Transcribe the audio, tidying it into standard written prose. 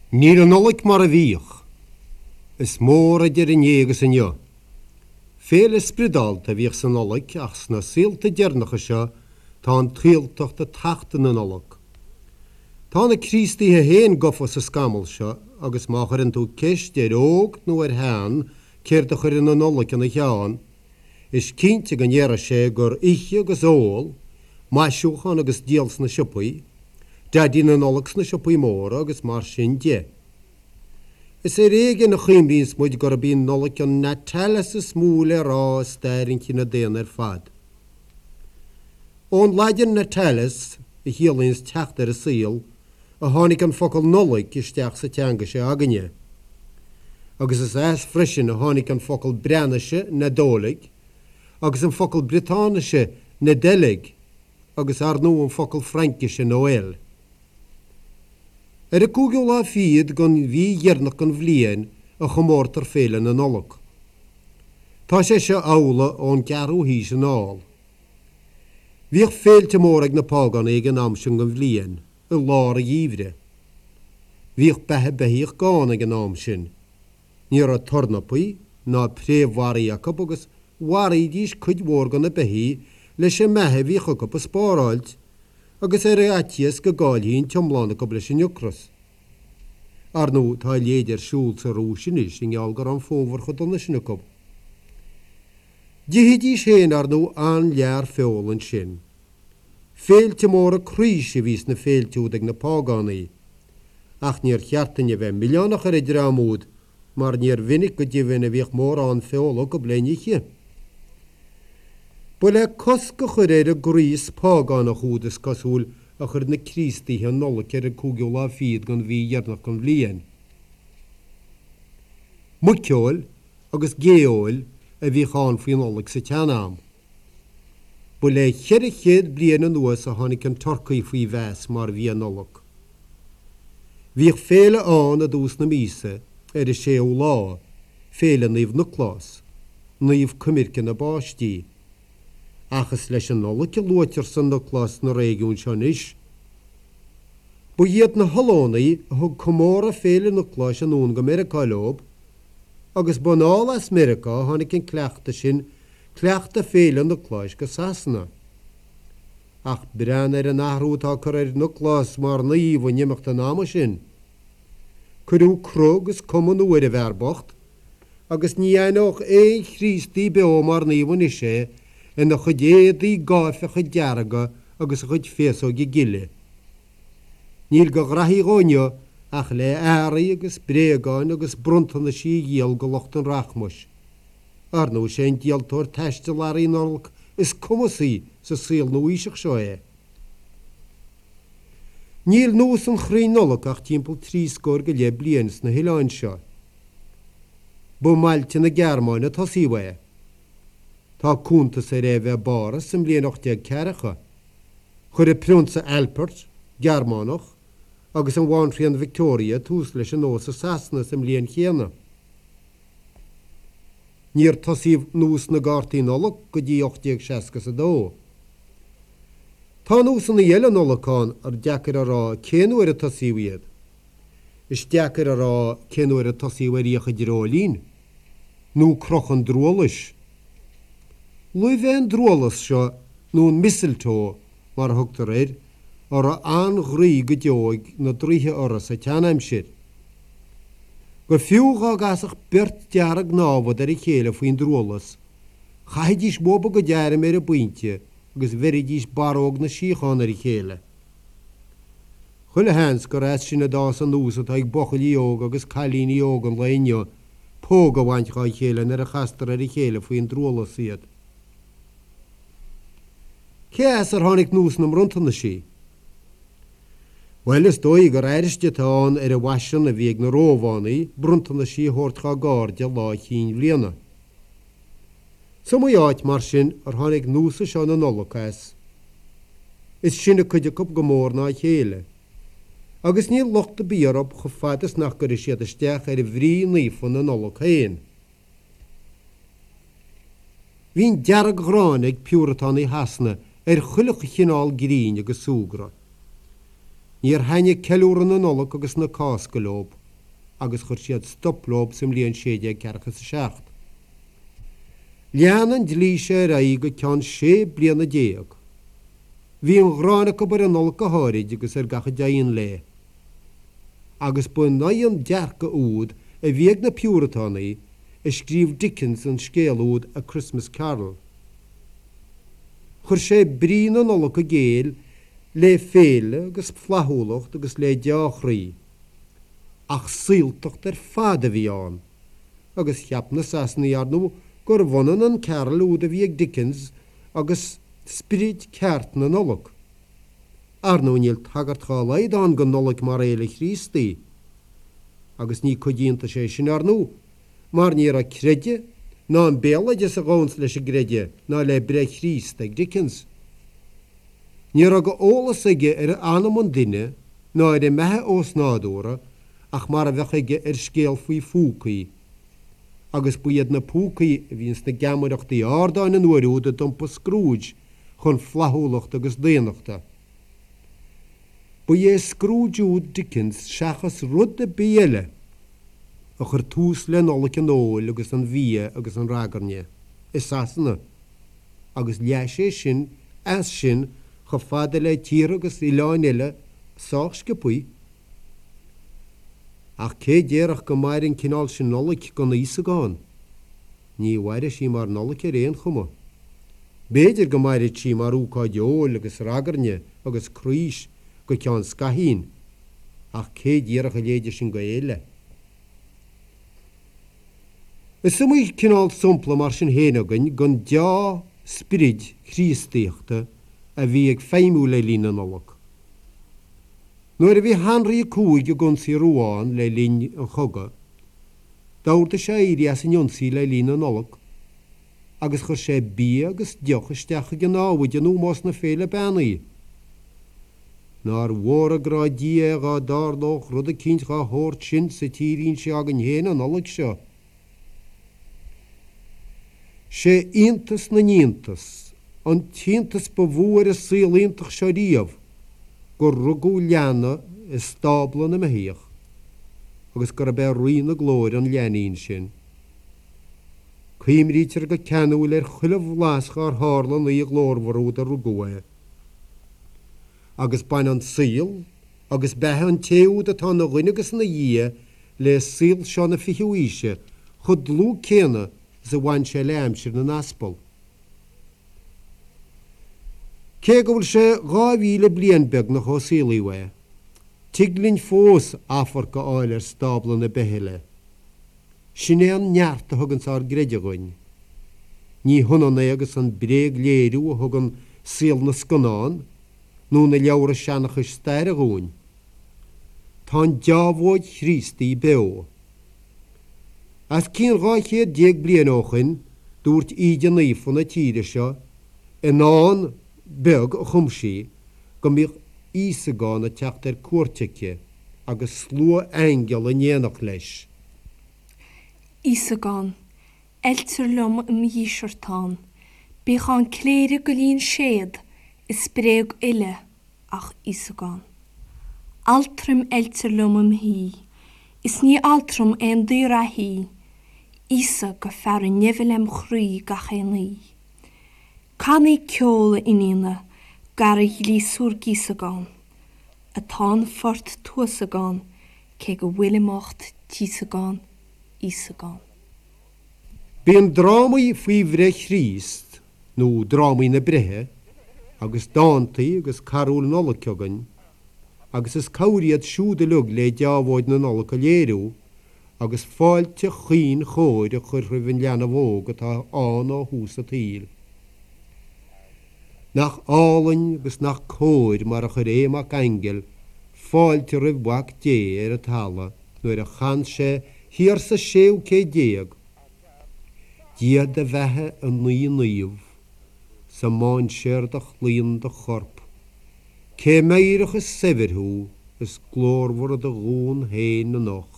Níl an Nollaig mar a bhíodh. Is mór idir inné agus inniu. Féile spriodálta a bhíodh sa Nollaig ach sna saolta deireanacha seo tá an tsaoltacht ag tachtadh na Nollag. Tá na Críostaithe féin gafa sa scamall seo agus má chuireann tú ceist ar óg nó ar shean céard a chuireann an Nollaig ina cheann, is cinnte go ndéarfaidh sé gur ithe agus ól, maisiúchán agus díol sna siopaí, Daidí na Nollag sna siopaí móra agus mar sin de. Is ar éigean a chuimhníonns muid gurb í an Nollaig an Natalis is mó le rá i stair an chine daonna ar fad. Ón Laidin natalis, a chiallaíonns teacht ar an saol, a tháinig an focal Nollaig isteach sa teanga seo againne. Agus is as freisin a tháinig an focal Breatnaise Nadolig agus an focal Briotáinise Nedeleg, agus ar ndóigh an focal Fraincise Noël. Ar an gcúigiú lá fichead den mhí dheireanach den bhliain a chomórtar Féile na Nollag. Tá sé seo amhlaidh ón gceathrú haois anall. Bhíodh féilte móra ag na págánaigh ag an am sin den bhliain, i lár an gheimhridh. Bhíodh beatha beithíoch gann ag an am sin. Ní raibh tornapaí ná préamhbharraí acu agus mharaídís cuid mhór de na beithígh leis an mbeatha a bhíodh acu a spáráilt agus ar fhaitíos go gcaillfí an t-iomlán acu leis an ocras. Ar ndóigh tá a leithéid ar siúl sa Rúis anois i ngeall go raibh an fómhar chomh dona sin acu. D'ithidís féin ar ndóigh an-lear feola ansin. Féilte móra craois a bhí sna féilte úd ag na págánaigh. Ach níor cheart duinn a bheith milleánach ar an dream úd mar níor mhinic go deimhin a bhíodh mórán feola acu le n-ithe. Ba le cosc a chur ar an gcraos págánach úd is cosúil a chuir na Críostaithe an Nollaig ar an gcúigiú lá fichead den mhí dheireanach den bhliain. Muiceoil agus gé-fheoil a bhíodh ann faoi Nollaig sa tsean-am. Ba le 400 bliain anuas a tháinig an turcaí faoi mheas mar bhia Nollag. Bhíodh féile ann i dtús na míosa, ar an séú lá, Féile Naomh Nioclás, naomh coimirce na bpáistí. Ach is leis an Nollaig a luaitear San Nioclás sna réigiúin seo anois. Ba iad na hOllannaigh a thug comóradh Féile Niocláis anonn go Meiriceá leob, agus ba anall as Meiriceá a tháinig an cleachtadh sin Cleachtadh Féile Niocláis go Sasana. Ach breathnaigh ar an athrú atá curtha ar Nioclás mar naomh in imeacht an ama sin. Cuireadh cruth agus cuma nua ar an bhfear bocht, agus ní aithneodh aon Chríostaí beo mar naomh anois é ina chuid éadaí gáifeacha dearga agus a chuid féasóige gile. Níl de ghraithí dhó inniu ach le earraí agus bréagáin agus bronntanaisí a dhíol go lucht an rachmais. Ar ndóigh, is é an díoltóir taistil earraí Nollag is cumasaí sa saol nua-aoiseach seo é. Níl nós an chrainn Nollag ach timpeall trí scór go leith bliain sna hoileáin seo. Ba i mbailte na Gearmáine a tosaíodh é. Tá cuntas ar é a bheith i bPáras sa mbliain 1840. Chuir an Prionsa Albert, Gearmánach, agus an Bhanríon Victoria tús leis an nós i Sasana sa mbliain chéanna. Níor tosaíodh nós na gcártaí Nollag go dtí 1862. Tá nósanna eile Nollag ann ar deacair a rá cén uair a tosaíodh iad. Is deacair a rá cén uair a tosaíodh ar fhiacha dreoilín, nó crochadh an drualais. Luibh é an drualas seo, nó an mistletoe mar a thugtar air, a raibh an-ghroí go deo ag na draoithe orthu sa tseanaimsir. Go fiú dhá gcasfadh beirt dearg-námhad ar a chéile faoin drualas, chaithfidís uathu a gcuid airm ar an bpointe agus bheiridís barróg na síochána ar a chéile. Chuile sheans gur as sin a d'fhás an nós atá ag buachaillí óga agus cailíní óga an lae inniu póg a bhaint dhá chéile nuair a chastar ar a chéile faoin drualas iad. Cé as ar tháinig nós na mbronntanasí? Bhuel, is dóigh gur airste atá ann ar an bhfaisean a bhí ag na Rómhánaigh bronntanaisí a thabhairt dhá gcairde lá Chinn Bhliana. Is iomaí áit, mar sin, ar tháinig nósa seo na Nollag as. Is sine cuid acu go mór ná a chéile. Agus níl locht ar bith orthu chomh fada is nach gcuirfidh siad isteach ar bhrí naofa na Nollag féin. Bhí an dearg-ghráin ag Piúratánaigh Shasana ar chuile chineál grinn agus súgradh. Níor thaitnigh ceiliúradh na Nollag agus na Cásca leob agus chuir siad stop leob sa mbliain 1647. Lean an dlí seo ar aghaidh go ceann sé bliana. Bhí an ghráin acu ar an Nollaig go háirid agus ar gach a dtéann léi. Agus ba in aghaidh an dearcadh úd a bhí ag na Piúratánaigh a scríobh Dickens an scéal úd A Christmas Carol. Chuir sé brí na Nollag i gcéill le féile agus flaithiúlacht agus le deá-chroí. Ach saoltacht ar fad a bhí ann, agus cheap na Sasanaigh, ar ndóigh, gurbh ionann an carol úd a bhí ag Dickens agus sprid ceart na Nollag. Ar ndóigh níl tagairt dhá laghad ann don Nollaig mar fhéile Chríostaí. Agus ní cuid iontais é sin, ar ndóigh, mar ní raibh creideamh ná an béaloideas a ghabhanns leis an gcreideamh ná le breith Chríost ag Dickens. Ní raibh de eolas aige ar anam an duine ná ar an mbeatha ósnádúrtha ach mar a bheadh aige ar scéal faoi phúcaí, agus ba iad na púcaí a bhí ins na geamaireachtaí ardáin an uair úd a d'iompaigh Scrooge chun flaithiúlachta agus daonnachta. Ba é Scrooge úd Dickens seachas rud ar bith eile a chuir tús le Nollaig an óil agus an bhia agus an ragairne i Sasana. agus leath sé sin as sin chomh fada le tíortha agus oileáin eile sách sciobthaí. Ach cé déarfadh go mairfeadh an cineál sin Nollaig gan Íosagán? Ní mhairfidh sí mar Nollaig ar aon chuma. B'fhéidir go mairfidh sí mar ócáid óil agus ragairne agus craois go ceann scaithín, ach cé déarfadh a leithéide sin go fhéile? Is iomaí cineál sampla mar sin féin againn den deá-sprid Chríostaíochta a bhí ag feidhmiú le linn na Nollag. Nuair a bhí Henrí a Cúig ag ionsaí Rouen le linn an chogaidh, d'ordaigh sé éirí as an ionsaí le linn na Nollag agus chuir sé bia agus deoch isteach chuig a námhaid in ómós na féile beannaí. Nár mhór an grá Dia é dhá dtarlódh rud eicínt dhá shórt sin sa tírín seo againn féin an Nollaig seo. 'Sé iontas na n-iontas, an t-iontas ba mhó ar an saol iontach seo riamh, gur rugadh leanbh i stábla na mbeithíoch, agus gurb é Rí na Glóire an leainín sin. Cuimrítear go ceanúil ar chuile bhlas dhár tharla an oíche ghlórmhar úd a rugadh é. Agus baineann saol agus beatha an té úd atá ina dhuine agus ina Dhia le saol seo na fichiú aoise chomh dlúth céanna is a bhain sé le aimsir na n-aspal. Cé go bhfuil sé 2000 bliain beagnach ó saolaíodh é, tig linn fós amharc a fháil ar stábla na Beithle. Sin é an neart a thuganns ár gcreideamh dhuinn. Ní hionann é agus an bréagléiriú a thugann saol na scannán nó na leabhra seanchais staire dhúinn. Tá an deábhóid Chríostaí beo. Os cionn 12 chéad bliain ó shoin dúirt Íde Naofa na tíre seo i ndán beag a chum sí go mbíodh Íosagán ag teacht ar cuairt aici agus slua aingeal in éineacht leis. Íosagán, Oiltear liom im dhíseartán, Bíodh ann cléireach go líon séad, Is bréag uile ach Íosagán. Altraim oiltear liom im shuí, Is ní altram aon daor-reathaí, Íosa go fearadh neimhe lem chroí gach aon oí. Canaí ceol, a iníona, garaidh ghliosúr gíosagán, Atá an phort tuasagán, Cé go bhfuilim ucht tíosagán, Íosagán. Bíonn drámaí faoi bhreith Chríost, nó drámaí na breithe, agus dántaí agus carúil Nollag againn, agus is cabhair iad siúd uilig le deábhóid na Nollag a léiriú, agus fáilte chaoin chóir a chur roimh an leanbh óg atá ann ó thús an tsaoil. Nach álainn agus nach cóir mar a chuir Aodh Mac Aingil fáilte roimh Mhac Dé ar an talamh nuair a chan sé thiar sa séú céad déag, Dia do bheatha i naoi naomh, sa mainséar do chlaon do chorp, cé meidhreach is saibhir thú is glórmhar i do dhún féin anocht.